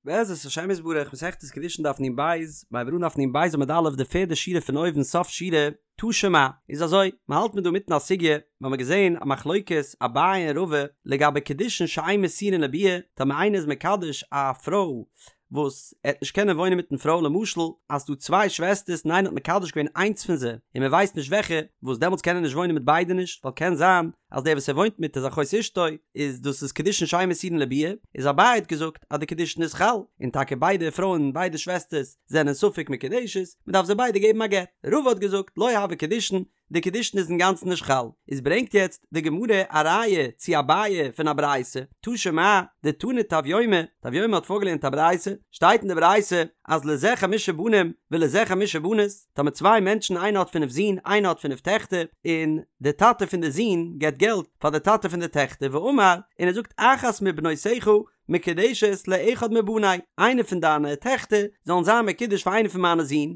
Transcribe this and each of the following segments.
בעזרת השם יתברך, מסכת קידושין דף נ"ב, מ'הייבט אן דף נ"ב עמוד א', די פערדע שורה פון אויבן סוף שורה, תא שמע, איז אזוי, מען האלט מיר דא מיטן א סוגיא, מיר האבן געזען א מחלוקת אביי און רבא לגבי קידושין שאין מסורין לביאה, טאמער איינער איז מקדש א פרוי וואס ער וועט נישט קענען וואוינען מיטן פרוי למשל אז ס'דא צוויי שוועסטערס און איינער האט מקדש געווען איינס פון זיי און מען ווייסט נישט וועלכע, וואס דעמאלטס קען ער נישט וואוינען מיט ביידע נישט, ווייל קען זיין אז דער וואס ער וואוינט מיט איז אחות אשתו, איז דאס איז קידושין שאין מסורין לביאה, איז אביי האט געזאגט אז די קידושין איז חל, און טאקע ביידע פרויען ביידע שוועסטערס זענען ספק מקודשת, מען דארף זיי ביידע געבן א גט. רבא האט געזאגט לא הוי קידושין, די קידושין איז אינגאנצן נישט חל, איז ברענגט יעצט די גמרא א ראיה צו אביי פון א ברייתא, תא שמע, דתני טביומי, טביומי האט פארגעלערנט א ברייתא, שטייט אין די ברייתא אז לזה חמשה בנים ולזה חמשה בנות, טאמער צוויי מענטשן איינער האט פינף זין איינער האט פינף טעכטער, און די טאטע פון די זין געבט געלט פאר די טאטע פון די טעכטער ואמר, און ער זאגט אחת מבנותיך מקודשת לאחד מבני, איינע פון דיינע טעכטער זאלן זיין מקודש פאר איינע פון מיינע זין,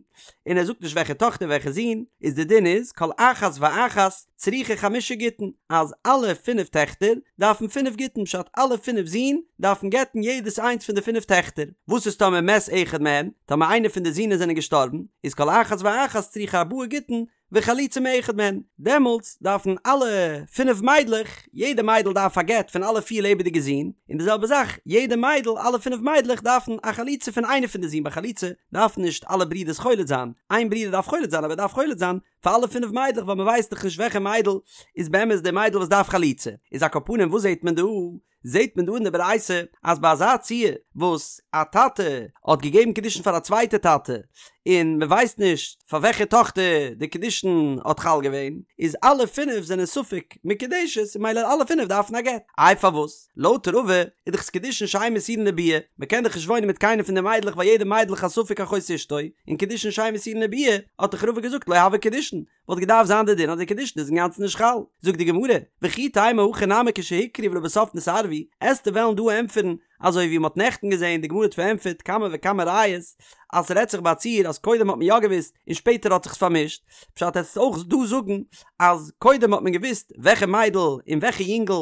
און ער זאגט נישט וועלכע טאכטער וועלכע זון, איז די דין איז כל אחת ואחת צריכה חמשה גיטין, אז אלע פינף טעכטער דארפן פינף גיטין פשט אלע פינף זין דארפן גט'ן יעדעס איינס פון די פינף טעכטער, וואס איז טאמער מת אחד מהן, טאמער איינע פון די זינען זענען געשטארבן, איז כל אחת ואחת צריכה ארבעה גיטין וחליצה מאחד מהן, דעמאלטס דארפן אלע פינף מיידלעך, יעדע מיידל דארף א גט פון אלע פיר לעבעדיגע זין, און די זעלבע זאך, יעדע מיידל, אלע פינף מיידלעך דארפן א חליצה פון איינע פון די זין, ביי חליצה דארפן נישט אלע ברידערס חולץ זיין, איין ברודער דארף חולץ זיין אבער ער דארף חולץ זיין פאר אלע פינף מיידלעך ווייל מען ווייסט דאך נישט וועלכע מיידל איז באמת די מיידל וואס דארף חליצה, איז על כל פנים וואס זעט מען דא? זעט מען דא אין די ברייתא אז ביי אזא ציור וואס א טאטע האט געגעבן קידושין פאר א צווייטע טאטע און מען ווייסט נישט פאר וועלכע טאכטער די קידושין האט חל געווען איז אלע פינף זענען ספק מקודשת און ממילא אלע פינף דארפן א גט. איי פארוואס? לויט רבא איז דאך עס קידושין שאין מסורין לביאה, מען קען דאך נישט וואוינען מיט קיינע פון די מיידלעך ווייל יעדע מיידל איז א ספק אחות אשתו, און קידושין שאין מסורין לביאה האט דאך רבא געזאגט לא הוי קידושין, וואלט געדארפט זיין די דין אז די קידושין איז אינגאנצן נישט חל. זאגט די גמרא, וכי תימא הכא נמי כשהוכרו ולבסוף נתערבו, עסטו וועלן דא ענטפערן אזוי ווי מ'האט נעכטן געזען, די גמרא האט פארענטפערט כמה וכמה ראיות אז ס'רעדט זיך ביי א ציור אז קודם האט מען יא געוואוסט און שפעטער האט זיך עס פארמישט, פשט עסט אויך דא זאגן אז קודם האט מען געוואוסט וועלכע מיידל און וועלכע יונגל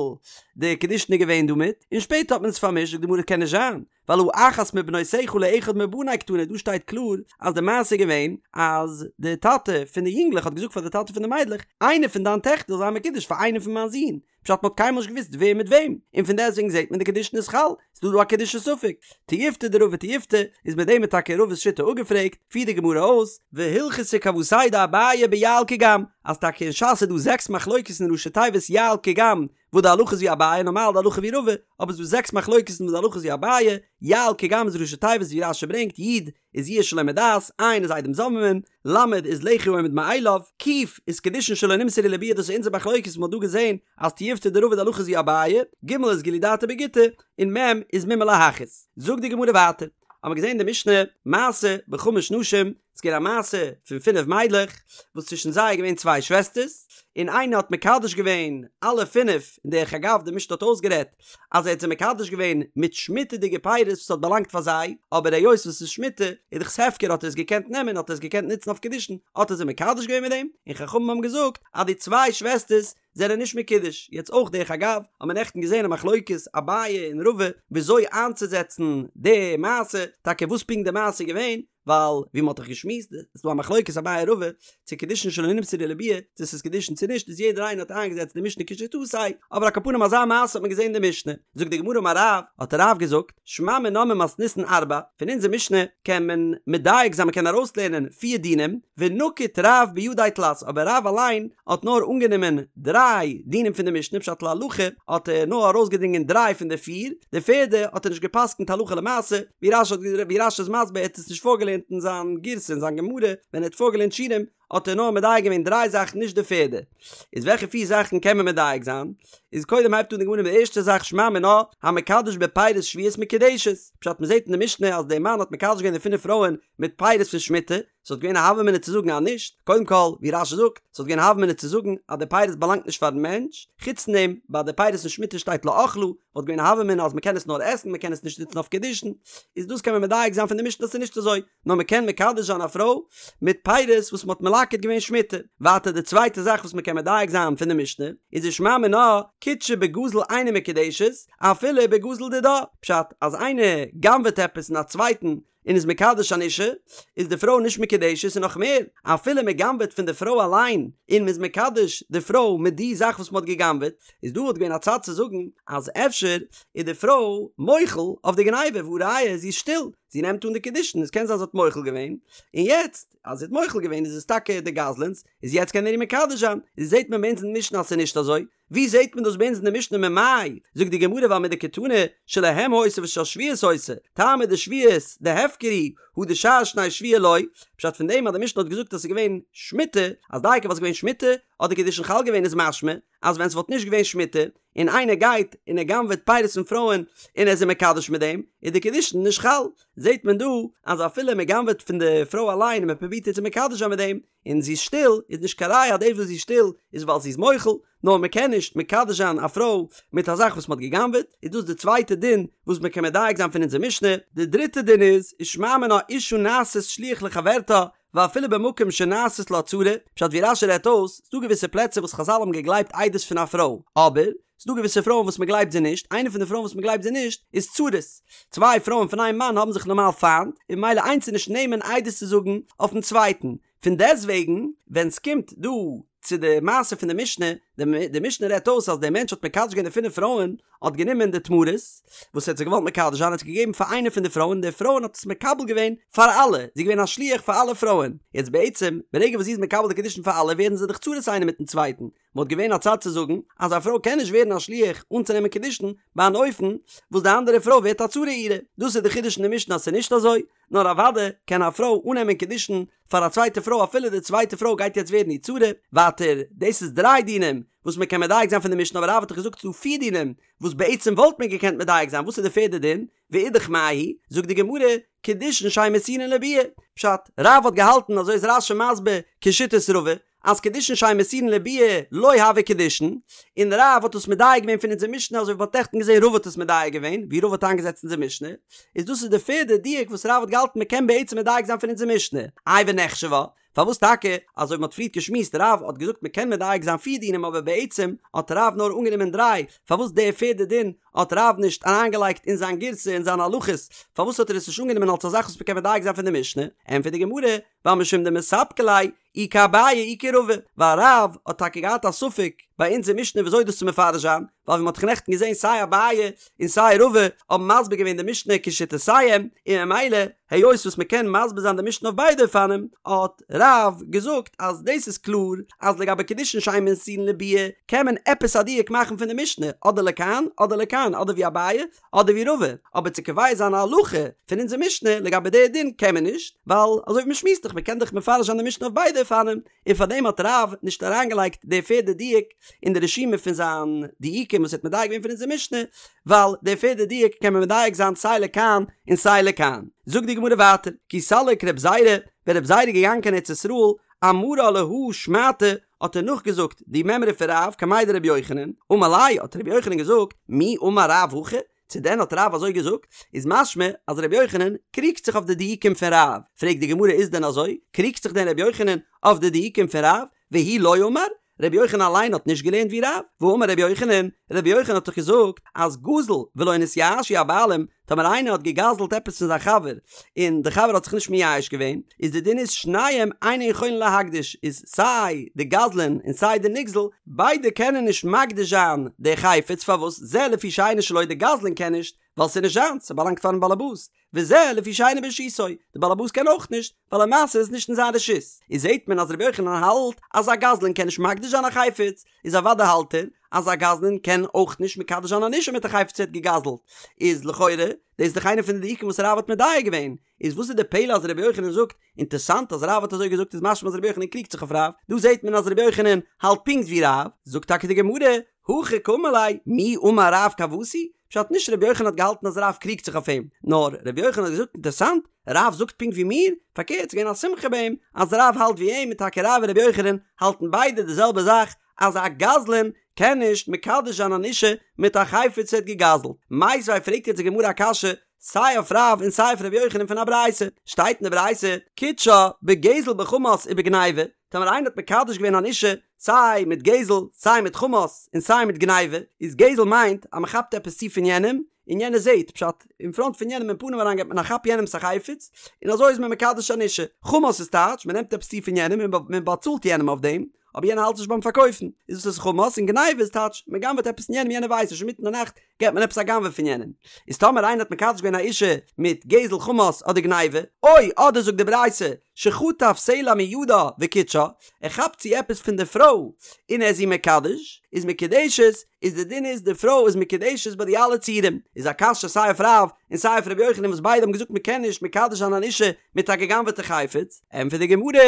די קידושין איז געווען דא מיט און שפעטער האט מען עס פארמישט, זאגט די גמרא קען נישט זיין, ווייל הא אחת מבנותיך לאחד מבני קתני דא שטייט קלאר אז די מעשה איז געווען אז די טאטע פון די יונגלעך האט געזאגט פאר די טאטע פון די מיידלעך איינע פון דיין טעכטער זאל זיין מקודש פאר איינע פון מיין זין פשט מ'האט קיינמאל נישט געוואוסט ווער מיט וועם און פון דעסטוועגן זעט מען די קידושין איז חל ס'איז דא דא א קידושי ספק תיובתא דרבא תיובתא איז מיט דעם איז טאקע רבא'ס שיטה אפגעפרעגט פירט די גמרא אויס והלכתא כוותיה דאביי ביע"ל קג"ם אז טאקע אין ש"ס איז דא זעקס מחלוקת אין ראשי תיבות יע"ל קג"ם וואס די הלכה איז ווי אביי, נארמאל די הלכה ווי רבא, אבער ס'דא זעקס מחלוקת'ן וואס די הלכה איז ווי אביי, יע"ל קג"ם איז ראשי תיבות ווי רש"י ברענגט, י' איז יאוש שלא מדעת, ע' איז עדים זוממין, ל' איז לחי העומד מאליו, ק' איז קידושין שלא נמסרו לביאה דאס איז אונזער מחלוקת וואס מ'האט דא געזען אז תיובתא דרבא די הלכה איז ווי אביי, ג' איז גילוי דעתו בגיטא, און מ' איז מומר להכעיס. זאגט די גמרא ווייטער, האמער געזען אין די משנה, מעשה בחמש נשים, ס'איז געווען א מעשה פון פינף מיידלעך, וואס צווישן זיי איז געווען צוויי שוועסטערס, און איינע האט מקדש געווען אלע פינף, און דרך אגב די משנה האט אויסגערעדט אז ער האט זיי מקדש געווען מיט שמיטה'דיגע פירות וואס האט באלאנגט פאר זיי, אבער היות וואס ס'איז שמיטה איז דאך ס'הפקר האט ער עס געקענט נעמען האט ער עס געקענט נוצן אויף קידושין, האט ער זיי מקדש געווען מיט דעם, און חכמים האבן געזאגט אז די צוויי שוועסטערס זענען נישט מקודש, יעצט אויך דרך אגב האט מען נעכטן געזען א מחלוקת אביי און רבא וויאזוי איינצוזעצן די מעשה, טאקע וואס פונקט די מעשה איז געווען, ווייל ווי מ'האט דאך געשמועסט איז דא א מחלוקת אביי רבא צו קידושין שלא נמסרו לביאה צו ס'איז קידושין צו נישט איז יעדער איינער האט איינגעזעצט די משנה כשיטתו אבער על כל פנים אזא מעשה האט מען געזען אין די משנה זאגט די גמרא אמר רב האט רב געזאגט שמע מינה ממתניתין ארבע פון אונזער משנה קען מען מדייק זיין מ'קען ארויסלערנען פיר דינים ונקיט רב בידיה תלת אבער רב אליין האט נאר אנגענומען דריי דינים פון די משנה פשט להלכה האט ער נאר ארויסגעדרינגען דריי פון די פיר די פערדע האט ער נישט געפסקנט הלכה למעשה ווי רש"י האט ווי רש"י איז מסביר ער האט עס נישט פארגעלערנט אין זיין גירסא אין זיין גמרא ווען ער האט פארגעלערנט שיעורים האט ער נאר מדייק געווען דריי זאכן נישט די פערדע איז וועלכע פיר זאכן קען מען מדייק זיין איז קודם הייבט אן די גמרא מיט די ערשטע זאך שמע מינה המקדש בפירות שביעית מקודשת פשט מען זעט אין די משנה אז דער מאן האט מקדש געווען די פינף פרויען מיט פירות פון שמיטה ס'וואלט געווען א הוה אמינא צו זאגן אז נישט, קודם כל, ווי רש"י זאגט, ס'וואלט געווען א הוה אמינא צו זאגן אז די פירות באלאנגט נישט פארן מענטש, חוץ פון דעם, ביי די פירות פון שמיטה שטייט לאכלה, וואלט געווען א הוה אמינא אז מ'קען עס נאר עסן, מ'קען עס נישט נוצן אויף קידושין, איז דאס קען מען מדייק זיין פון די משנה אז ס'איז נישט אזוי, נאר מ'קען מקדש זיין א פרוי מיט פירות וואס מ'האט מלקט. מלקט געווען שמיטה. ווייטער די צווייטע זאך וואס מ'קען מדייק זיין פון די משנה, איז ושמע מינה, קידשה בגזל אינה מקודשת, אפילו בגזל דידה, פשט אז איינער גנב'עט עפעס פון א צווייטן און איז מקדש אן אישה, איז די פרוי נישט מקודשת און נאך מער, אפילו מען גנב'עט פון די פרוי אליין און מען איז מקדש די פרוי מיט די זאך וואס מען האט געגנב'עט, איז דא וואלט געווען א צד צו זאגן אז אפשר איז די פרוי מוחל אויף די גניבה והא ראיה זי איז שטיל, זי נעמט אן די קידושין, עס קען זיין זי האט מוחל געווען, און יעצט אז זי האט מוחל געווען איז עס טאקע די גזלן'ס, איז יעצט קען ער איר מקדש זיין, איז זעט מען ביי אונז אין משנה אז ס'איז נישט אזוי, ווי זעהט מען דאס ביי אונז אין די משנה ממאי? זאגט די גמרא ווייל מדקתני שלהם היתה ושל שביעית היתה, טעמא דשביעית דהפקר הוא הא דשאר שני שבוע לא, פשט פון דעם אז די משנה האט געזאגט אז ס'איז געווען שמיטה, אז דייקא ווייל ס'איז געווען שמיטה האט די קידושין חל געווען איז משמע אז ווען ס'וואלט נישט געווען שמיטה און איינער גייט און ער גנב'עט פירות פון פרויען און ער איז זיי מקדש מיט דעם איז די קידושין נישט חל, זעהט מען דא אז אפילו מ'גנב'עט פון די פרוי אליין און מ'פרובירט איר צו מקדש זיין מיט דעם און זי איז שטיל, איז נישט קיין ראיה אז דאס וואס זי איז שטיל איז ווייל זי איז מוחל, נאר מען קען נישט מקדש זיין א פרוי מיט א זאך וואס מען האט גע'גנב'עט, איז דאס די צווייטע דין וואס מען קען מדייק זיין פון אונזער משנה. די דריטע דין איז, ושמע מינה אשה נעשית שליח לחברתה, ואפילו במקום שנעשית לה צרה, פשט ווי רש"י רעדט אויס, ס'דא געוויסע פלעצער וואס חז"ל האבן געגלייבט עדות פון א פרוי, אבער, ס'דא געוויסע פרויען וואס מ'גלייבט זיי נישט, איינע פון די פרויען וואס מ'גלייבט זיי נישט איז צרות. צוויי פרויען פון איין מאן האבן זיך נארמאל פיינט, און ממילא איינס איז נישט נאמן עדות צו זאגן אויפן צווייטן. פון דעסטוועגן, ווען ס'קומט דא צו די מעשה פון די משנה, די משנה רעדט אויס אז דער מענטש האט מקדש געווען די פינף פרויען, האט גענומען די תמרות וואס ער האט זיי געוואלט מקדש זיין, האט עס געגעבן פאר איינע פון די פרויען, די פרויען האט עס מקבל געווען פאר אלע, זי איז געווען א שליח פאר אלע פרויען. יעצט בעצם, ברגע וואס זי איז מקבל די קידושין פאר אלע, ווערן זיי דאך צרות איינער מיטן צווייטן, וואלט געווען א צד צו זאגן אז א פרוי קען נישט ווערן א שליח אנצונעמען קידושין ביי אן אופן וואס די אנדערע פרוי ווערט א צרה אירע, דאס איז די חידוש אין די משנה אז ס'איז נישט אזוי, נאר אוודאי קען א פרוי אננעמען קידושין פאר א צווייטע פרוי אפילו די צווייטע פרוי גייט יעצט ווערן איר צרה, ווייטער דאס איז דריי דינים וואס מען קען מדייק זיין פון די משנה אבער רב האט דאך געזאגט ס'איז דא פיר דינים וואס בעצם וואלט מען געקענט מדייק זיין וואס איז די פערדע דין? ואידך מאי היא, זאגט די גמרא, קידושין שאין מסורין לביאה, פשט, רב האט געהאלטן אזוי איז רש"י מסביר כשיטת רבא, אז קידושין שאין מסורין לביאה לא הוו קידושין, און רב האט עס מדייק געווען פון אונזער משנה אזוי ווי מ'האט נעכטן געזען רבא האט עס מדייק געווען, ווי רבא האט איינגעזעצט אונזער משנה, איז דאס איז די פערדע דיוק וואס רב האט געהאלטן מ'קען בעצם מדייק זיין פון אונזער משנה, איי ונחשבה, פארוואס טאקע, אזוי ווי מ'האט פריערט געשמועסט רב האט געזאגט מ'קען מדייק זיין פיר דינים אבער בעצם האט רב נאר אנגענומען דריי, פארוואס די פערדע דין האט רב נישט אריינגעלייגט אין זיין גירסא אין זיינע הלכות, פארוואס האט ער עס נישט אנגענומען אלס א זאך וואס מ'קען מדייק זיין פון די משנה, ענטפערט די גמרא, ווייל משום דמספקא ליה אי כאביי אי כרבא, ווייל רב האט טאקע געהאט א ספק ביי אונזער משנה וויאזוי דאס צו מפרש זיין, ווייל ווי מ'האט דאך נעכטן געזען סיי אביי און סיי רבא האבן מסביר געווען די משנה כשיטותיהם, און ממילא היות וואס מ'קען מסביר זיין די משנה אויף ביידע אופנים, האט רב געזאגט אז דאס איז קלאר אז לגבי קידושין שאין מסורין לביאה קען מען עפעס א דיוק מאכן פון די משנה אדער לכאן אדער לכאן אדער ווי אביי אדער ווי רבא, אבער צו קובע זיין א הלכה פון אונזער משנה לגבי די דין קען מען נישט, ווייל אזוי ווי מ'שמועסט דאך מ'קען דאך מפרש זיין די משנה אויף ביידע אופנים, און פאר דעם האט רב נישט אריינגעלייגט די פערדע דיוק אין די רשימה פון זיין דיוקים וואס ער האט מדייק געווען פון אונזער משנה, ווייל די פערדע דיוק קען מען מדייק זיין סיי לכאן און סיי לכאן. זאגט די גמרא ווייטער, כי סליק רב זירא, ווען רב זירא איז געגאנגען קיין ארץ ישראל, אמרה להא שמעתא, האט ער נאכגעזאגט די מימרא פון רב קמיה דרבי יוחנן, אמר ליה, האט רבי יוחנן געזאגט, מי אמר רב הכי? צו דען האט רב אזוי געזאגט? איז משמע אז רבי יוחנן קריגט זיך אויף די דיוקים פון רב, פרעגט די גמרא איז דען אזוי? קריגט זיך דען רבי יוחנן אויף די דיוקים פון רב? והוא לא אמר? רבי יוחנן אליין האט נישט געלערנט ווי רב? והאמר רבי יוחנן, רבי יוחנן האט דאך געזאגט אז גזל ולא נתייאשו הבעלים, טאמער איינער האט געגזלט עפעס פון זיין חבר און די חבר האט זיך נישט מייאש געווען, איז די דין איז שניהם אינן יכולין להקדיש, איז סיי די גזלן און סיי די נגזל, ביידע קענען נישט מקדיש זיין די חפץ, פארוואס זה לפי שאינו שלו די גזלן קען נישט, ווייל ס'איז נישט זיינס, ס'באלאנגט פארן באלעבאס, וזה לפי שאינו ברשותו, די באלעבאס קען אויך נישט, ווייל למעשה איז נישט אין זיין רשות, איז זעט מען אז רבי יוחנן האלט אז א גזלן קען נישט מקדיש זיין א חפץ, איז אוודאי האלט ער אז א גזלן קען אויך נישט מקדש זיין אן אישה מיט א חפץ ער האט געגזלט, איז לכאורה דאס איז דאך איינע פון די דיוקים וואס רב האט מדייק געווען, איז וואס איז די פלא אז רבי יוחנן זאגט, אינטערסאנט אז רב האט אזוי געזאגט איז משמע אז רבי יוחנן קריגט זיך אויף רב, דא זעט מען אז רבי יוחנן האלט פונקט ווי רב, זאגט טאקע די גמרא, הכי קאמר ליה, מי אמר רב כוותי, פשט נישט רבי יוחנן האט געהאלטן אז רב קריגט זיך אויף אים, נאר רבי יוחנן האט געזאגט אינטערסאנט, רב זאגט פונקט ווי מיר, פארקערט ס'איז געווען א שמחה ביי אים אז רב האלט ווי אים און טאקע רב און רבי יוחנן האלטן ביידע די זעלבע זאך אז א גזלן קען נישט מקדש זיין אן אישה מיט א חפץ ער האט געגזלט. מיתיבי פרעגט יעצט די גמרא א קשיא סיי אויף רב און סיי אויף רבי יוחנן פון א ברייתא, שטייט אין די ברייתא קידשה בגזל בחמס ובגניבה, טאמער איינער האט מקדש געווען אן אישה סיי מיט גזל סיי מיט חמס און סיי מיט גניבה, איז גזל מיינט אז מען כאפט עפעס צו פון יענעם און יענער זעט, פשט, אין פראנט פון יענעם אין פנים אריין געבט מען א כאפ יענעמס א חפץ און אזוי איז מען מקדש אן אישה, חמס איז טייטש מען נעמט עפעס צו פון יענעם און מען באצאלט יענעם אויף דעם, אבער יענער האלט נישט ביים פארקויפן, איז דאס איז חמס, און גניבה איז טייטש מען גנב'עט עפעס פון יענעם יענער ווייסט נישט אינמיטן די נאכט געבט מען עפעס א גנב'ע פון יענעם, איז טאמער איינער האט מקדש געווען א אישה מיט גזל חמס אדער גניבה, או אדער זאגט די ברייתא שחטף סלע מידה וקידשה, ער כאפט צו עפעס פון די פרוי און ער איז איר מקדש, איז מקודשת, איז די דין איז די פרוי איז מקודשת ביי די אלע ציורים, איז א קשיא סיי אויף רב און סיי אויף רבי יוחנן וואס ביידע האבן געזאגט מען קען נישט מקדש זיין אן אישה מיט א גע'גנב'עטע חפץ, ענטפערט די גמרא,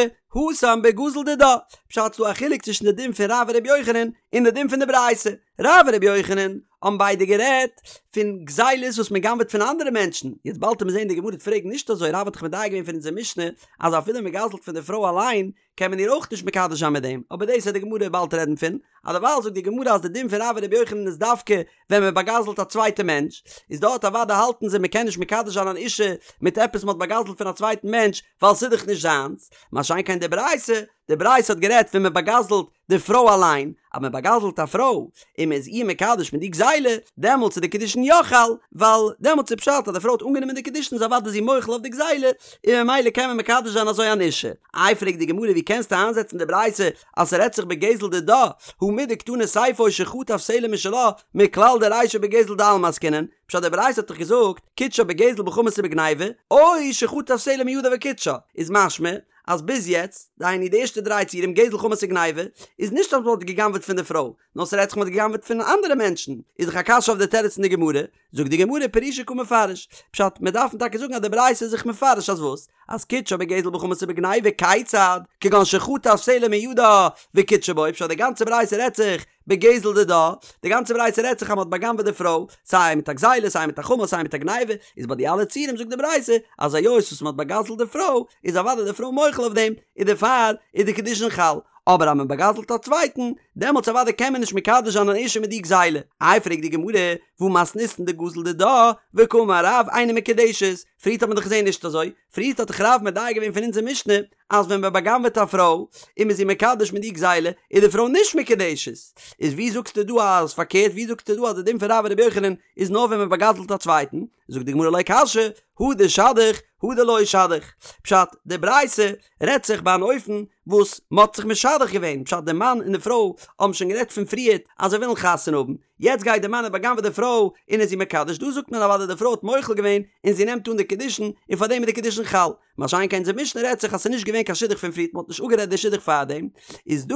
התם בגזול דידה, פשט ס'דא א חילוק צווישן די דין פון רב און רבי יוחנן און די דין פון די ברייתא, רב און רבי יוחנן האבן ביידע גערעדט פון גזילות וואס מען גנב'עט פון אנדערע מענטשן, יעצט באלד וועט מען זען די גמרא וועט פרעגן נישט אזוי, רב האט דאך מדייק געווען פון אונזער משנה אז אפילו מען גזל'ט פון די פרוי אליין קען מען איר אויך נישט מקדש זיין מיט דעם, אבער דאס וועט די גמרא באלד רעדן פון, אז דערווייל זאגט די גמרא אז די דין פון רב און רבי יוחנן איז דווקא ווען מען באגזל'ט א צווייטע מענטש, איז דארט אוודאי האלטן זיי מען קען נישט מקדש זיין אן אישה מיט עפעס מען האט באגזל'ט פון א צווייטן מענטש ווייל ס'איז דאך נישט זיינס, מה שאין כן די ברייתא, די ברייתא האט גערעדט ווען מען באגזל'ט די פרוי אליין, אז מען באגזל'ט א פרוי און מען איז איר מקדש מיט די גזילה, דעמאלטס איז די קידושין יא חל, ווייל דעמאלטס איז פשט אז די פרוי האט אנגענומען די קידושין איז אוודאי זי מוחל אויף די גזילה, און ממילא קען מען מקדש זיין אזוי אן אישה. איי פרעגט די גמרא ווי קענסטו איינזעצן די ברייתא אז ס'רעדט זיך בגזל דידה, הא מדקתני סיפא או שחטף סלע משלה, מכלל דרישא בגזל דעלמא עסקינן, פשט די ברייתא האט דאך געזאגט קידשה בגזל בחמס ובגניבה, או שחטף סלע מידה וקידשה, איז משמע אז ביז יעצט, דהיינו די ערשטע דריי ציורים גזל חמס וגניבה, איז נישט אז מ'האט גע'גנב'עט פון די פרוי, נאר ס'רעדט זיך מ'האט גע'גנב'עט פון אנדערע מענטשן, איז דאך א קשיא אויף די תירוץ אין די גמרא, זאגט די גמרא פרושי קא מפרש, פשט, מיר דארפן טאקע זאגן אז די ברייתא איז זיך מפרש אז וואס? אז קידשה בגזל בחמס ובגניבה כיצד? כגון שחטף סלע מידה וקידשה בו, פשט די גאנצע ברייתא רעדט זיך בגזל דידה, די גאנצע ברייתא רעדט זיך אז מ'האט בא'גנב'עט די פרוי, סיי מיט א גזילה סיי מיט א חמס סיי מיט א גניבה, איז ביי די אלע ציורים זאגט די ברייתא אז היות וואס מ'האט בא'גזל'ט די פרוי איז אוודאי די פרוי מוחל אויף דעם, און דערפאר איז די קידושין חל, אבער אז מען בא'גזל'ט א צווייטן, דעמאלטס אוודאי קען מען נישט מקדש זיין אן אישה מיט די גזילה. איי פרעגט די גמרא, והא מתניתין דגזל דידה, וקאמר רב אינה מקודשת, פריערט האט מען דאך געזען נישט אזוי, פריערט האט דאך רב מדייק געווען פון אונזער משנה אז ווען מען בא'גנב'עט א פרוי און מען איז איר מקדש מיט די גזילה איז די פרוי נישט מקודשת, איז ווי זאגסטו דא אז פארקערט ווי זאגסטו דא אז די דין פון רב און רבי יוחנן איז נאר ווען מען בא'גזל'ט א צווייטן, זאגט די גמרא לא קשיא, הא דשדיך הא דלא שדיך, פשט, די ברייתא רעדט זיך ביי אן אופן וואס מען האט זיך משדך געווען, פשט די מאן און די פרוי האבן שוין גערעדט פון פריערט אז זיי ווילן חתונה האבן, יעצט גייט די מאן און בא'גנב'עט די פרוי און איז איר מקדש, דא זאגט מען אוודאי די פרוי האט מוחל געווען און זי נעמט אן די קידושין און פארדעם איז די קידושין חל, מה שאין כן אונזער משנה רעדט זיך אז ס'איז נישט געווען קיין שידוך פון פריערט מ'האט נישט אפגערעדט די שידוך פארדעם, איז דא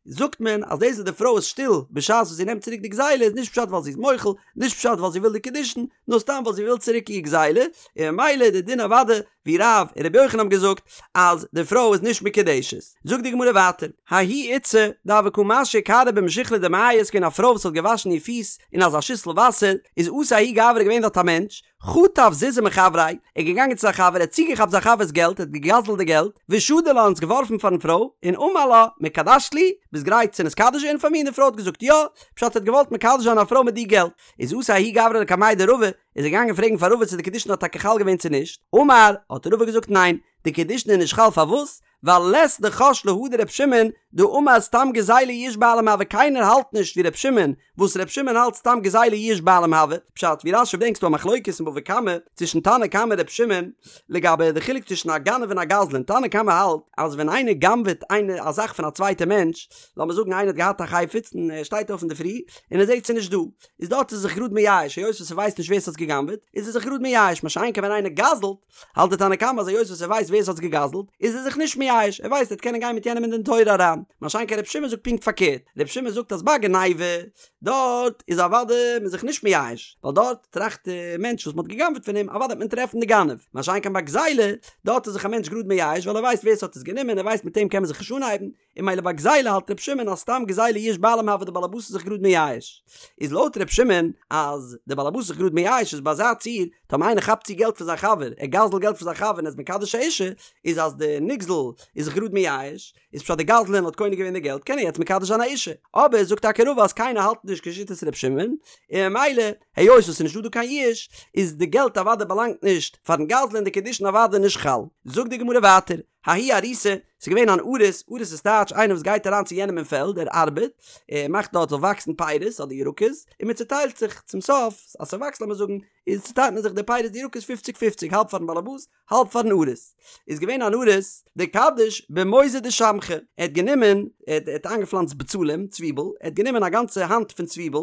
זאגט מען אז דאס וואס די פרוי איז שטיל בשעת וואס זי נעמט צוריק די גזילה איז נישט פשט ווייל זי איז מוחל, נישט פשט ווייל זי וויל די קידושין, נאר סתם ווייל זי וויל צוריק איר גזילה, און ממילא איז די דין אוודאי ווי רב און רבי יוחנן האבן געזאגט אז די פרוי איז נישט מקודשת. זאגט די גמרא ווייטער, ההיא איתתא דהוה קא משיא כרעא במשכלא דמיא איז געווען א פרוי וואס האט געוואשן איר פיס אין אזא שיסל וואסער, איז אתא ההוא גברא געווען דארט א מענטש, חטף זוזי מחבריה, ער איז געגאנגען צו זיין חבר, ער האט צוגעכאפט זיין חבר'ס געלט, ער האט געגזל'ט די געלט, ושדי לה און עס געווארפן פארן פרוי, און אמר לה, מקדשת לי, ביסט גרייט צו נתקדש ווערן פאר מיר? און די פרוי האט געזאגט יא, פשט ער האט געוואלט מקדש זיין א פרוי מיט די געלט, איז אתא ההוא גברא לקמיה דרבא, איז ער געגאנגען פרעגן פאר רבא צו די קידושין האט טאקע חל געווען צו נישט, אמר, האט רבא געזאגט ניין, די קידושין איז נישט חל פארוואס? ווייל לית דחש להא דר' שמעון דאמר סתם גזילה יאוש בעלים הוי קיינער האלט נישט ווי ר' שמעון וואס ר' שמעון האלט סתם גזילה יאוש בעלים הוי פשט ווי רש"י ברענגט ס'דא א מחלוקת אין בבא קמא צווישן תנא קמא און ר' שמעון לגבי די חילוק צווישן א גנב און א גזלן תנא קמא האלט אז ווען איינער גנב'עט איינער א זאך פון א צווייטע מענטש לאמיר זאגן איינער האט געהאט א חפץ און ער שטייט אויף אינדערפרי און ער זעט ס'איז נישט דא איז דארט איז ער זיך גראד מייאש היות וואס ער ווייסט נישט ווער ס'האט עס געגנב'עט איז ער זיך גראד מייאש מה שאין כן ווען איינער גזל'ט האלט די תנא קמא אז היות וואס ער ווייסט ווער עס האט עס געגזלט איז ער זיך נישט מייאש, ער ווייסט ער וועט קענען גיין מיט יענעם אין דין תורה אריין, מה שאין כן ר' שמעון זאגט פונקט פארקערט, ר' שמעון זאגט אז ביי גניבה דארט איז אוודאי מען זיך נישט מייאש, ווייל דארט טראכט די מענטש וואס מען האט געגנבעט פון אים אוודאי וועט מען טרעפן די גנב, מה שאין כן ביי גזילה דארט איז זיך א מענטש גראד מייאש ווייל ער ווייסט ווער עס האט עס גענומען ער ווייסט מיט אים קען מען זיך נישט אנהייבן, און ממילא ביי גזילה האלט ר' שמעון אז סתם גזילה יאוש בעלים הוי די בעלעבאס איז זיך גראד מייאש. איז לויט ר' שמעון אז די בעלעבאס איז זיך גראד מייאש איז ביי אזא ציור טאמער איינער כאפט צו געלט פון זיין חבר ער גזל'ט געלט פון זיין חבר און איז מקדש א אישה איז אז די נגזל איז זיך גראד מייאש איז פשט די גזלן האט קונה געווען די געלט קען ער יעצט מקדש זיין א אישה אבער זאגט טאקע רבא אז קיינער האלט נישט כשיטת ר' שמעון און ממילא היות עס איז נישטא דא קיין יאוש איז די געלט אוודאי באלאנגט נישט פארן גזלן און די קידושין אוודאי נישט חל זאגט די גמרא ווייטער. ההוא אריסא, ס'איז געווען אן אריס, אריס איז טייטש איינער וואס גייט אריין צו יענעם אין פעלד, ער ארבעט, ער מאכט דארט זאל וואקסן פירות אדער ירקות, און מען צוטיילט זיך צום סוף, אז ס'וואקסט לאמיר זאגן, איז צוטיילט מען זיך די פירות די ירקות פופציג פופציג, האלב פארן באלעבאס, האלב פארן אריס. איז געווען אן אריס, דקדיש במוזא דשמכא, ער האט גענומען, ער האט איינגעפלאנצט בצלים, צוויבל, ער האט גענומען א גאנצע האנט פון צוויבל,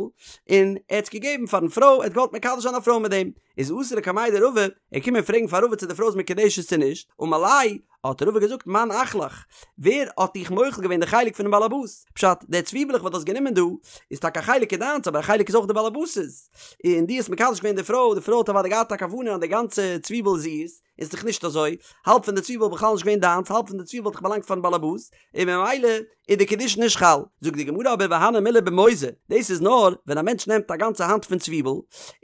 און ער האט עס געגעבן פארן פרוי, ער האט געוואלט מקדש זיין א פרוי מיט דעם, איז אתא לקמיה דרבא, ער איז געקומען פרעגן פאר רבא צו די פרוי איז מקודשת צו נישט, אמר ליה, האט רבא געזאגט מאן אחלך, ווער האט דיך מוחל געווען די חלק פונעם באלעבאס? פשט, די צוויבלעך וואס דו האסט גענומען דא, איז טאקע א חלק איז דיינס אבער א חלק איז אויך די באלעבאס'ס, און דו האסט מקדש געווען די פרוי, די פרוי האט אוודאי געהאט א כוונה אז די גאנצע צוויבל איז איר'ס, איז דאך נישט אזוי, האלב פון די צוויבל איז בכלל נישט געווען דיינס, האלב פון די צוויבל האט דאך באלאנגט פארן באלעבאס, און ממילא איז די קידושין נישט חל. זאגט די גמרא אבער והני מילי במוזא, דאס איז נאר ווען א מענטש נעמט א גאנצע האנט פון צוויבל,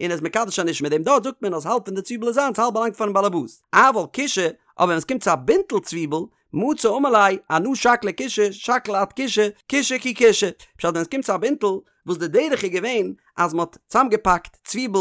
און איז מקדש אן אשה מיט דעם, דארט זאגט מען אז האלב פון די צוויבל איז זיינס האלב באלאנגט פארן באלעבאס, אבל כישא, אבער ווען עס קומט צו א בינטל צוויבל, מצי אמר ליה, אנא שקלי כישא, שקיל את כישא, כישא כי כישא. פשט ווען עס קומט צו א בינטל, וואס די דרך איז געווען אז מען האט צאמגעפאקט צוויבל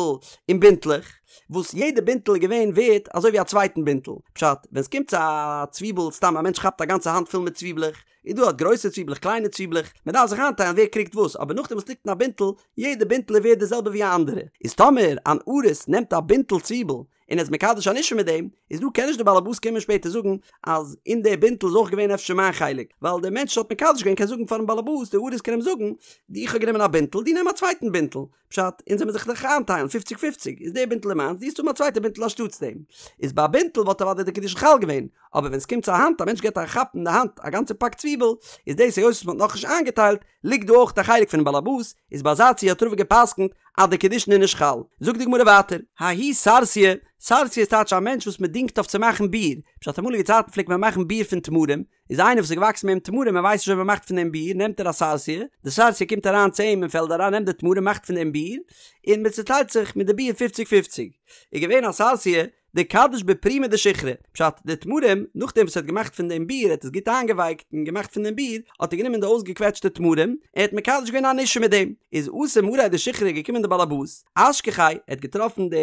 אין בינטלעך, וואס יעדע בינטל איז געווען ווערט אזוי ווי א צווייטן בינטל. פשט, ווען עס קומט צו א צוויבל, סתם א מענטש כאפט א גאנצע האנט פול מיט צוויבלעך, איז דא האט גרויסע צוויבלעך קליינע צוויבלעך, מען דארף זיך איינטיילן ווער קריגט וואס, אבער נאכדעם וואס ליגט אין א בינטל, יעדע בינטל איז ווערט די זעלבע ווי א אנדערע. איז טאמער אן אריס נעמט א בינטל צוויבל, און איז מקדש אן אשה מיט דעם, איז דא קען נישט די באלעבאס קומען שפעטער זאגן אז אין די בינטל איז אויך געווען אפשר מיין חלק, ווייל דער מענטש האט מקדש געווען קען זאגן פארן באלעבאס, די אריס קען אים זאגן, איך האב גענומען א בינטל, דו נעם א צווייטן בינטל, פשט, אונז זעמיר זיך דאך איינטיילן פופציג פופציג, איז די בינטל איז מיינס, דו וועסט האבן א צווייטע בינטל אנשטאטס דעם. איז ביי א בינטל וואלט אוודאי די קידושין חל געווען, אבער ווען עס קומט צו א האנט, א מענטש געבט א כאפ אין די האנט א גאנצע פאק צוויבל, איז דאס היות וואס מען האט נאכנישט איינגעטיילט, ליגט דא אויך א חלק פונעם באלעבאס, איז ביי אזא ציור האט רבא געפסקנט אז די קידושין איז נישט חל. זאגט די גמרא ווייטער, ההוא סרסיא, סרסיא איז טייטש א מענטש וואס מען דינגט אויף צו מאכן ביר, פשט אמאליגע צייטן פלעגט מען מאכן ביר פון תמרים, איז איינער וואס איז געוואקסן מיט אים תמרים ער ווייסט נישט ווי מען מאכט פון דעם ביר נעמט ער א סרסיא, די סרסיא קומט אריין צו אים אין פעלד אריין נעמט די תמרים מאכט פון דעם ביר, און מען צוטיילט זיך מיט די ביר פופציג פופציג. איז געווען א סרסיא, דקדיש בפרימא דשיכרא, פשט, די תמרים, נאכדעם וואס ער האט געמאכט פון דעם ביר, ער האט עס גוט איינגעווייקט און געמאכט פון דעם ביר, האט ער גענומען די אויסגעקוועטשטע תמרים, ער האט מקדש געווען אן אשה מיט דעם. איז אתא מאריה דשיכרא געקומען די באלעבאס, אשכחיה, ער האט געטראפן די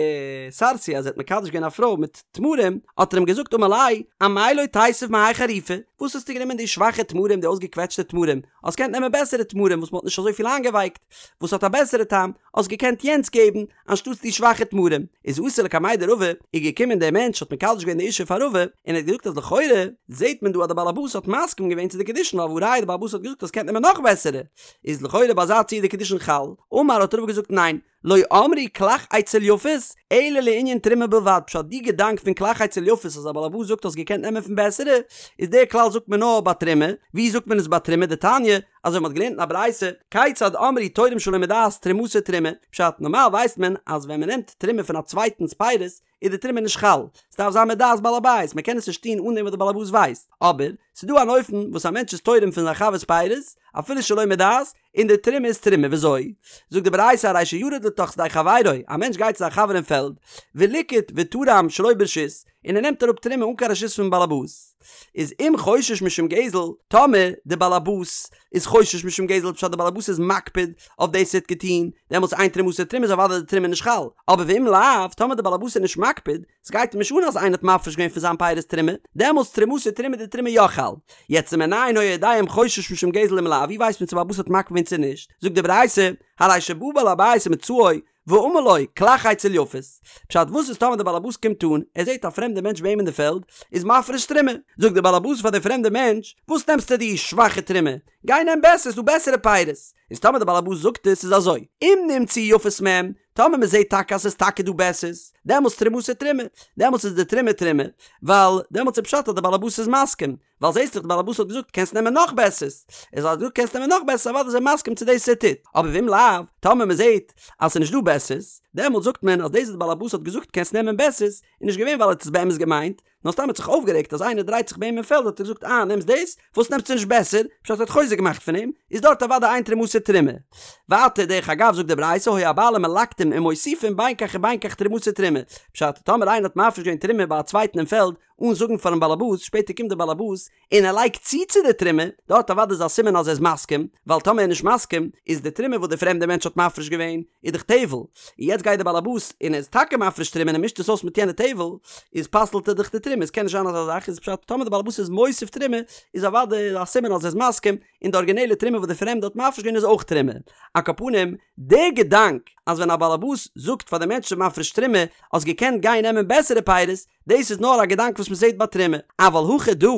סרסיא אז ער האט מקדש געווען א פרוי מיט תמרים, האט ער אים געזאגט אמר ליה, אמאי לא תיתיב מהאי חריפא, וואס האסטו גענומען די שוואכע תמרים, די אויסגעקוועטשטע תמרים, האסט געקענט נעמען בעסערע תמרים וואס מען האט נישט אזויפיל איינגעווייקט, וואס האט א בעסערע טעם, האסט געקענט יענץ געבן, אנשטאטס די שוואכע תמרים, איז אתא לקמיה דרבא, איז געקומען דער מענטש האט מקדש געווען די אישה פאר רבא, און ער האט געזאגט אז לכאורה זעט מען דא אז דער בעל הבית האט מסכים געווען צו די קידושין ווייל והא ראיה דער בעל הבית האט געזאגט אז קענט נעמען נאך בעסערע, איז לכאורה ביי אזא ציור די קידושין חל, אמר האט רבא געזאגט ניין, לא אמרו כלך אצל יפות, אלא לענין תרומה בלבד, פשט די געדאנק פון כלך אצל יפות אז א בעל הבית זאגט האסט געקענט נעמען פון בעסערע, איז דער כלל זאגט מען נאר ביי תרומה, ווי זאגט מען עס ביי תרומה דתניא, אזוי מ'האט געלערנט אין א ברייתא, כיצד אמרו תורם שלא מדעת תרומתו תרומה, פשט, נארמאל ווייסט מען אז ווען מ'נעמט תרומה פון א צווייטנס פירות איז די תרומה נישט חל, ס'דארף זיין מדעת בעל הבית, מ'קען עס נישט טון אן דעם וואס די בעל הבית ווייסט, אבער, ס'דא אן אופן וואס א מענטש איז תורם פון זיין חבר'ס פירות, אפילו שלא מדעת, און די תרומה איז תרומה, וויאזוי? זאגט די ברייתא הרי שירד לתוך שדה חברו, א מענטש גייט צו זיין חבר אין פעלד, וליקט ותרם שלא ברשות, און ער נעמט אראפ תרומה אן קיין רשות פון באלעבאס, איז אם חושש משום גזל, טאמער די באלעבאס איז חושש משום גזל פשט די באלעבאס איז מקפיד אויף דאס ער האט געטון, דעמאלטס אין תרומתו תרומה איז אוודאי די תרומה נישט חל, אבער ואם לאו, טאמער די באלעבאס איז נישט מקפיד, ס'גייט אים נישט אן אז איינער האט מפריש געווען פון זיין פירות תרומה, דעמאלטס תרומתו תרומה די תרומה יא חל. יעצט ומנין היה יודע אם חושש משום גזל אם לאו, ווי ווייסט מען צו באלעבאס האט מקפיד געווען צו נישט, זאגט די ברייתא, הרי שבא בעל הבית ומצאו, ואמר לו, כלך אצל יפות. פשט, וואס איז טאמער דער באלעבאס קומט אן, ער זעט א פרעמדע מענטש ביי אים אין די פעלד, איז מפריש תרומה. זאגט דער באלעבאס פאר דער פרעמדע מענטש, וואס נעמסטו די שוואכע תרומה? גיי נעם בעסער, ס'איז דא בעסערע פירות. איז טאמער דער באלעבאס זאגט עס, איז אזוי, אם נמצאו יפות מהם, טאמער מען זעט טאקע אז ס'איז טאקע דא בעסערס, דעמאלטס תרומתו תרומה, דעמאלטס איז די תרומה תרומה, ווייל דעמאלטס איז פשט אז דער באלעבאס איז מסכים, ווייל זעסט דאך די באלעבאס האט געזאגט קענסט נעמען נאך בעסערס, איז אז ער האט געזאגט קענסט נעמען נאך בעסערס אוודאי איז ער מסכים צו דאס ער טוט, אבער ואם לאו, טאמער מען זעט אז ס'איז נישט דא בעסערס, דעמאלטס זאגט מען אז דאס וואס די באלעבאס האט געזאגט קענסט נעמען בעסערס, איז נישט געווען ווייל ער האט עס באמת געמיינט, נאר סתם ער האט זיך אויפגערעגט אז איינער דרייט זיך ביי אים אין פעלד האט ער געזאגט אה נעמסט דאס? וואס נעמסטו נישט בעסער? פשט ער האט חוזק געמאכט פון אים, איז דארט אוודאי אין תרומתו תרומה. ווייטער דרך אגב זאגט די ברייתא היו הבעלים מלקטים ומוסיפים בין כך ובין כך תרומתו תרומה, פשט טאמער איינער האט מפריש געווען תרומה ביי א צווייטן אין פעלד. אן זאגן פארן באלעבאס, שפעטער קומט דער באלעבאס און ער לייגט צו צו די תרומה, דארט אוודאי איז א סימן אז ער איז מסכים, ווייל טאמער ער איז נישט מסכים, איז די תרומה וואס די פרעמדע מענטש האט מפריש געווען, איז דאך טבל, און יעצט גייט די באלעבאס און ער איז טאקע מפריש תרומה און ער מישט עס אויס מיט יענע טבל, איז פסל'ט ער דאך די תרומה, עס קען נישט זיין אזא זאך, איז פשט טאמער די באלעבאס איז מוסיף תרומה, איז אוודאי א סימן אז ער איז מסכים, און די ארגינעלע תרומה וואס די פרעמדע האט מפריש געווען איז אויך תרומה. על כל פנים, דער געדאנק אז ווען א באלעבאס זאגט פאר די מענטש ס'איז מפריש תרומה, האסט געקענט גיין נעמען בעסערע פירות, דאס איז נאר א געדאנק וואס מען זעט ביי תרומה. אבל הכא דא,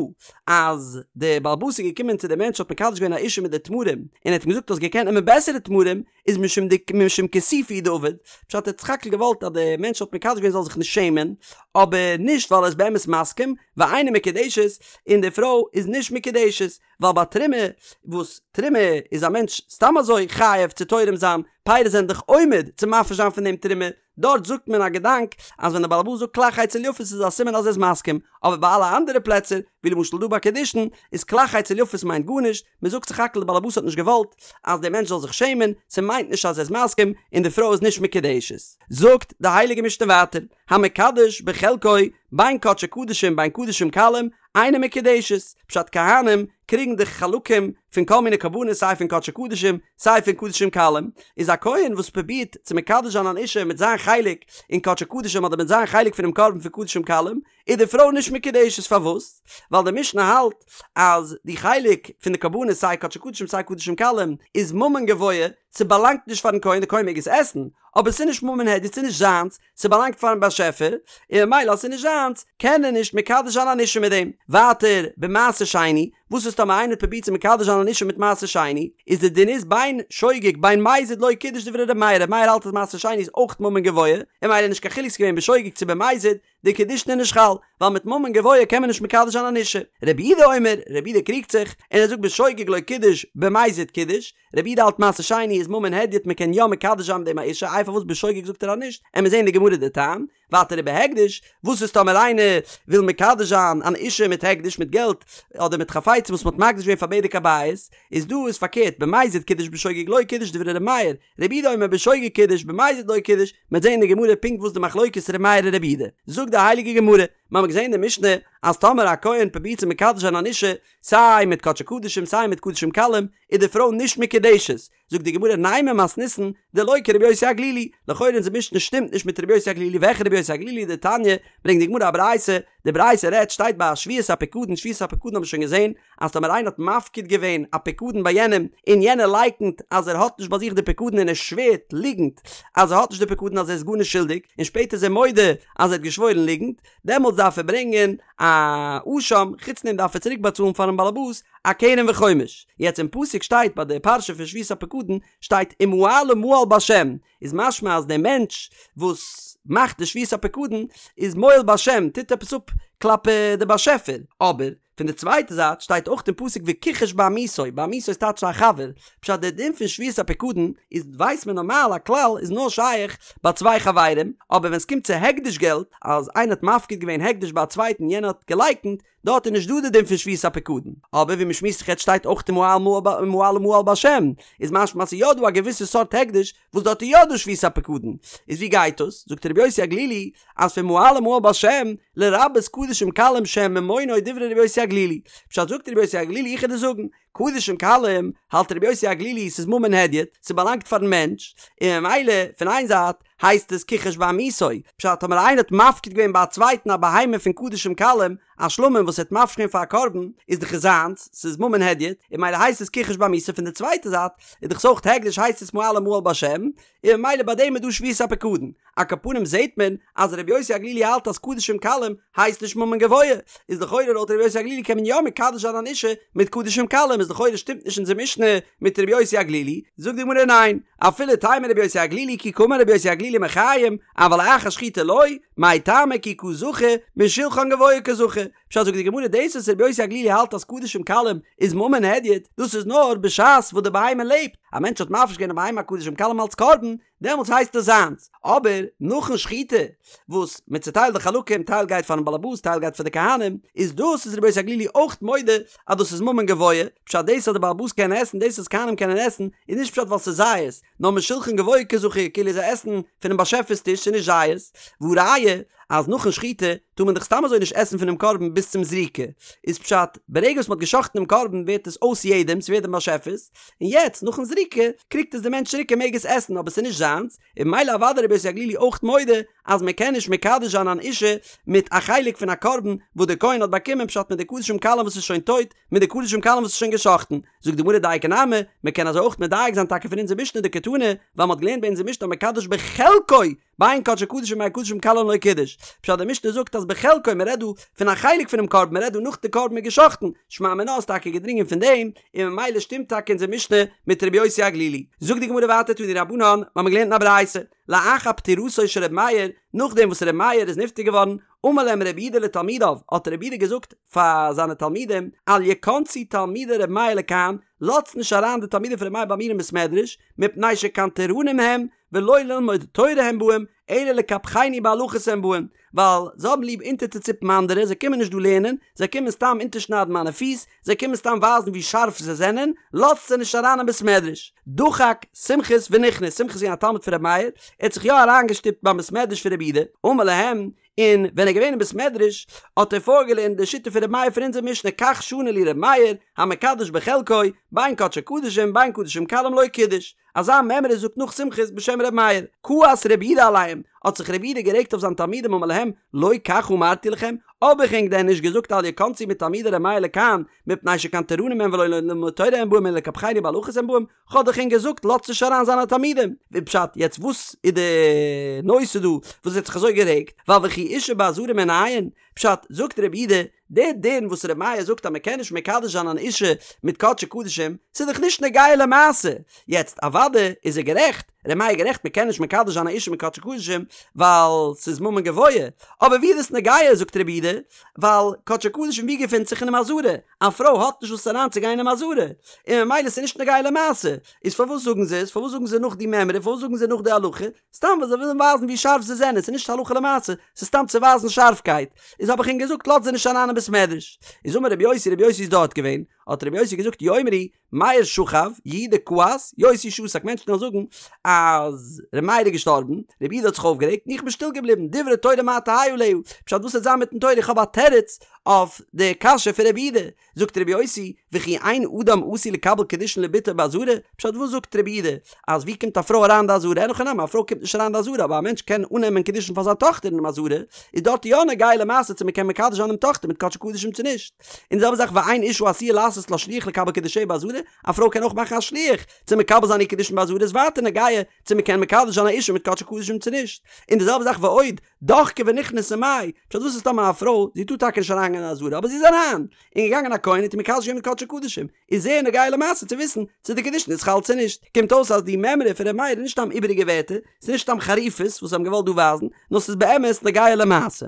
אז די באלעבאס איז געקומען צו די מענטש האט מקדש געווען א אישה מיט די תמרים, און ער האט אים געזאגט האסט געקענט נעמען בעסערע תמרים, איז משום ד משום כיסופא הוא דעבד, פשט ער האט סך הכל געוואלט אז די מענטש האט מקדש געווען זאל זיך נישט שעמען, אבער נישט ווייל ער איז באמת מסכים, ואינה מקודשת, און די פרוי איז נישט מקודשת. ווייל ביי תרומה, וואס תרומה איז א מענטש סתם אזוי חייב צו תורם זיין, פירות זענען דאך עומד צו מפריש זיין פון דעם תרומה, דארט זאגט מען א געדאנק אז ווען דער בעל הבית זאגט כלך אצל יפות איז א סימן אז ער איז מסכים, אבער ביי אלע אנדערע פלעצער, ווי למשל דא ביי קידושין, איז כלך אצל יפות מיינט גארנישט, מען זאגט סך הכל דער בעל הבית האט נישט געוואלט אז דער מענטש זאל זיך שעמען, ס'מיינט נישט אז ער איז מסכים, און די פרוי איז נישט מקודשת. זאגט די הייליגע משנה ווייטער, המקדש בחלקו בין קדשי קדשים בין קדשים קלים, אינה מקודשת, פשט כהנים קריגן די חלקים פון כל מיני קרבנות סיי פון קדשי קדשים סיי פון קדשים קלים, איז א כהן וואס פרובירט צו מקדש זיין אן אישה מיט זיין חלק אין קדשי קדשים אדער מיט זיין חלק פונעם קרבן פון קדשים קלים, איז די פרוי נישט מקודשת פארוואס? ווייל די משנה האלט אז די חלק פון די קרבנות סיי קדשי קדשים סיי קדשים קלים איז ממון גבוה, ס'באלאנגט נישט פארן כהן, די כהן מעג עס עסן, אבער ס'איז נישט ממון הדיוט ס'איז נישט זיינס, ס'באלאנגט פארן באשעפער, און ממילא אז ס'איז נישט זיינס, קען ער נישט מקדש זיין אן אישה מיט דעם. ווייטער, במעשר שני, וואס איז טאמער איינער האט פרובירט צו מקדש זיין אן אישה מיט מעשר שני, איז די דין איז בין שוגג בין מזיד לא קידש דברי ר' מאיר, ר' מאיר האלט אז מעשר שני איז אויך ממון גבוה, און ממילא נישט קיין חילוק ס'איז געווען בשוגג צו במזיד, די קידושין איז נישט חל, ווייל מיט ממון גבוה קען מען נישט מקדש זיין אן אישה. רבי יהודה אומר, רבי יהודה קריגט זיך, און ער זאגט בשוגג לא קידש, במזיד קידש, רבי יהודה האלט מעשר שני איז ממון הדיוט מען קען יא מקדש זיין מיט דעם א אישה איי פארוואס בשוגג זאגט ער אז נישט עמיר זעהן אין די גמרא די טעם ווייטער ובהקדש וואס איז טאמער איינער וויל מקדש זיין אן אישה מיט הקדש מיט געלט אדער מיט חפצים וואס מען האט מקדיש געווען פאר בדק הבית איז דא איז פארקערט במזיד קידש בשוגג לא קידש דברי ר' מאיר רבי יהודה אומר בשוגג קידש במזיד לא קידש מ'עט זעהן אין די גמרא פונקט וואס די מחלוקת ר' מאיר און רבי יהודה זאגט די הייליגע גמרא מ'האמיר געזעהן אין די משנה אז טאמער א כהן פרובירט צו מקדש זיין אן אישה סיי מיט קדשי קדשים סיי מיט קדשים קלים איז די פרוי נישט מקודשת, זאגט די גמרא נימא מתניתין דלא כרבי יוסי הגלילי, לכאורה אונזער משנה שטימט נישט מיט רבי יוסי הגלילי, וועלכע רבי יוסי הגלילי דתניא, ברענגט די גמרא א ברייתא, די ברייתא רעדט שטייט ביי שבועת הפיקדון, שבועת הפיקדון האבן מיר שוין געזען אז טאמער איינער האט מפקיד געווען א פיקדון ביי יענעם און יענער לייקנט אז ער האט נישט ביי זיך די פיקדון און ער שווערט ליגנט אז ער האט נישט די פיקדון אז ער איז גארנישט שולדיג און שפעטער איז ער מודה אז ער האט געשוואוירן ליגנט, דעמאלטס דארף ער ברענגען א אשם, חוץ דעם דארף ער צוריק באצאלן פארן באלעבאס א קרן וחומש. יעצט אין פסוק שטייט ביי די פרשה פון שבועת הפקדון שטייט ומעלה מעל בהשם, איז משמע אז דער מענטש וואס מאכט די שבועת הפקדון איז מועל בהשם, טוט עפעס אפ כלפי די באשעפער, אבער פון די צווייטע זייט שטייט אויך אין פסוק וכחש בעמיתו, בעמיתו איז טייטש א חבר, פשט דער דין פון שבועת הפיקדון איז ווייסט מען נארמאל א כלל איז נאר שייך ביי צוויי חברים, אבער ווען סקומט צו הקדש געלט אז איינער האט מפקיד געווען הקדש ביי א צווייטן יענער האט געלייקנט, דארט איז נישט דא די דין פון שבועת הפיקדון, אבער ווי מ'שמועסט זיך יעצט שטייט אויך ומעלה מעל בהשם, איז משמע אז ס'איז יא דא א געוויסע סארט הקדש וואס דארט איז יא דא שבועת הפיקדון, איז ווי גייט דאס? זאגט רבי יוסי הגלילי אז פון ומעלה מעל בהשם לרבות קדשים קלים שהם ממונו דברי רבי יוסי הגלילי, פשט זאגט רבי יוסי הגלילי איך וועל דיר זאגן, קדשים קלים האלט רבי יוסי הגלילי ס'איז ממון הדיוט, ס'באלאנגט פארן מענטש, און ממילא פון איין זייט הייסט עס כחש בעמיתו, פשט טאמער איינער האט מפקיד געווען ביי א צווייטן א בהמה פון קדשים קלים, א שלמים וואס ער האט מפריש געווען פאר א קרבן, איז דאך עס זיינס, ס'איז ממון הדיוט, און ממילא הייסט עס כחש בעמיתו, פון די צווייטע זייט איז דאך עס אויך הקדש הייסט עס מעלה מעל בהשם, און ממילא ביי דעם איז דא שבועת הפקדון. על כל פנים זעהט מען אז רבי יוסי הגלילי האלט אז קדשים קלים הייסט נישט ממון גבוה, איז לכאורה לויט רבי יוסי הגלילי קען מען יא מקדש זיין אן אישה מיט קדשים קלים, איז לכאורה שטימט נישט אונזער משנה מיט רבי יוסי הגלילי, זאגט די גמרא ניין, אפילו תימא רבי יוסי הגלילי כי קאמר רבי יוסי הגלילי מחיים, אבל אחר שחיטה לא, מאי טעמא כי קא זכו משולחן גבוה קא זכו, פשט זאגט די גמרא דאס וואס רבי יוסי הגלילי האלט אז קדשים קלים איז ממון הדיוט, דאס איז נאר בשעת וואס די בהמה לעבט, א מענטש האט מפריש געווען א בהמה קדשים קלים אלץ קרבן, דעמאלטס הייסט עס זיינס, אבער נאכן שחיטה וואס מען צוטיילט די חלקים טייל גייט פארן באלעבאס טייל גייט פאר די כהנים, איז דאס איז רבי יוסי הגלילי אויך מודה אז דאס איז ממון גבוה, פשט דאס אז די באלעבאס קען עסן דאס אז כהנים קענען עסן איז נישט פשט ווייל ס'איז זייערס, נאר משולחן גבוה קא זכו כאילו זיי עסן פונעם באשעפער'ס טיש ס'איז נישט זייערס, והא ראיה. אז נאכן שחיטה טאר מען דאך סתם אזוי נישט עסן פונעם קרבן ביז צום זריקה, איז פשט, ברגע וואס מ'האט גע'שחט'ן דעם קרבן ווערט עס אויס יעדעם, ס'ווערט דעם באשעפער'ס, און יעצט נאכן זריקה קריגט עס דער מענטש צוריק ער מעג עס עסן אבער ס'איז נישט זיינס, און ממילא אוודאי רבי יוסי הגלילי אויך מודה אז מען קען נישט מקדש זיין אן אישה מיט א חלק פון א קרבן וואס דער כהן האט באקומען פשט מיט די קדשים קלים וואס איז שוין טויט מיט די קדשים קלים וואס איז שוין גע'שחט'ן, זאגט די גמרא דייקא נמי, מען קען אזוי אויך מדייק זיין טאקע פון אונזער משנה דקתני, ווייל מען האט געלערנט ביי אונזער משנה המקדש בחלקו בין קדשי קדשים בין קדשים קלים לא קידש, פשט די משנה זאגט אז בחלקו מען רעדט דא פון א חלק פונעם קרבן מען רעדט דא נאך די קרבן איז גע'שחט'ן, שמע מינה איז טאקע געדרינגען פון דעם, און ממילא שטימט טאקע אונזער משנה מיט רבי יוסי הגלילי. זאגט די גמרא ווייטער תנו רבנן, מיר האבן געלערנט אין א ברייתא, לאחר פטירתו של רבי מאיר, נאכדעם וואס רבי מאיר איז נפטר געווארן, אמר להם רבי יהודה לתלמידיו, האט רבי יהודה געזאגט פאר זיינע תלמידים, אל יכנסו תלמידי רבי מאיר לכאן, לאזטס נישט אריין די תלמידים פון רבי מאיר ביי מיר אין בית מדרש, מפני שקנטרנים הם, ולא ללמוד תורה הם באים, אלא לקפחני בהלכות הם באים, ווייל זיי האבן ליב אונטערצוציפן אנדערע, זיי קומען נישט דא לערנען, זיי קומען סתם אונטערשניידן מיינע פיס, זיי קומען סתם ווייזן ווי שארף זיי זענען, לאזטס זיי נישט אריין אין בית מדרש. דחק סומכוס ונכנס, סומכוס איז געווען א תלמיד פון רבי מאיר, ער האט זיך יא אריינגעשטופט ביים בית מדרש פון רבי יהודה, אמר להם, און ווען ער איז געווען אין בית מדרש האט ער פארגעלערנט די שיטה פון רבי מאיר פון אונזער משנה כך שנה לי רבי מאיר, המקדש בחלקו, בין קדשי קדשים בין קדשים קלים לא קידש. אזא מימרא זאגט נאך סומכוס בשם ר' מאיר, כעס רבי יהודה עליהם, האט זיך רבי יהודה גערעגט אויף זיין תלמידים אמר להם, לא כך אמרתי לכם, האב איך ענק דען נישט געזאגט אל יכנסו מתלמידי ר' מאיר לכאן, מפני שקנטרנים הם ולא ללמוד תורה הם באים אלא לקפחני בהלכות הם באים, כ'האב דאך ענק געזאגט לאזטס נישט אריין זיינע תלמידים. ווי פשט, יעצט וואס איז די נושא דא וואס ער האט זיך אזוי גערעגט, ווייל וכי אישה בעזרה מנין, פשט, זאגט רבי יהודה, דער דין וואס ר' מאיר זאגט אז מען קען נישט מקדש זיין אן אישה מיט קדשי קדשים, ס'איז דאך נישט נוגע למעשה. יעצט אוודאי איז ער גערעכט, ר' מאיר איז גערעכט מען קען נישט מקדש זיין א אישה מיט קדשי קדשים ווייל ס'איז ממון גבוה, אבער ווי איז דאס נוגע זאגט רבי יהודה, ווייל קדשי קדשים ווי געפינט זיך אינעם עזרה, א פרוי האט נישט וואס אריין צו גיין אינעם עזרה, און ממילא ס'איז נישט נוגע למעשה, איז פארוואס זאגן זיי עס, פארוואס זאגן זיי נאך די מימרא, פארוואס זאגן זיי נאך די הלכה, סתם ווייל זיי ווילן ווייזן ווי שארף זיי זענען, ס'איז נישט הלכה למעשה, ס'איז סתם צו ווייזן שארפקייט. איז האב איך ענק געזאגט לאזט זיי נישט אריין אין בית מדרש. איז אמר רבי יוסי, רבי יוסי איז דארט געווען, האט רבי יוסי געזאגט יאמרו, מאיר שכב, יהודה כעס, יוסי שתק, מענטשן וועלן זאגן אז ר' מאיר איז געשטארבן, רבי יהודה האט זיך אויפגערעגט און איך בין שטיל געבליבן, דברי תורה מה תהא עליה, פשט וואס וועט זיין מיטן תורה, איך האב א תירוץ אויף די קשיא פון רבי יהודה, זאגט רבי יוסי, וכי אין אדם עשוי לקבל קידושין לבתו בעזרה, פשט וואס זאגט רבי יהודה, אז ווי קומט א פרוי אריין אין די עזרה, אין הכי נמי א פרוי קומט נישט אריין אין די עזרה, אבער א מענטש קען אננעמען קידושין פאר זיין טאכטער אינעם עזרה, איז דארט יא נוגע למעשה צו מען קען מקדש זיין דעם טאכטער מיט קדשי קדשים צו נישט. און די זעלבע זאך ואין אשה עשויה לעשות לה שליח לקבל קידושיה בעזרה, א פרוי קען אויך מאכן א שליח צו מקבל זיין איר קידושין בעזרה איז ווייטער נוגע צו מען קען מקדש זיין א אישה מיט קדשי קדשים צו נישט. און די זעלבע זאך ועוד, דחקה ונכנסה מאי, פשט וואס איז טאמער א פרוי, זי טאר טאקע נישט אריינגיין אין עזרה, אבער זי איז אריין, און געגאנגען א כהן האט איר מקדש געווען מיט קדשי קדשים, איז זייער נוגע למעשה צו וויסן צו די קידושין איז חל צו נישט, קומט אויס אז די מימרא פון ר' מאיר איז נישט סתם איבעריגע ווערטער, ס'איז נישט סתם חריפות וואס זיי האבן געוואלט דא ווייזן, נאר ס'איז באמת נוגע למעשה.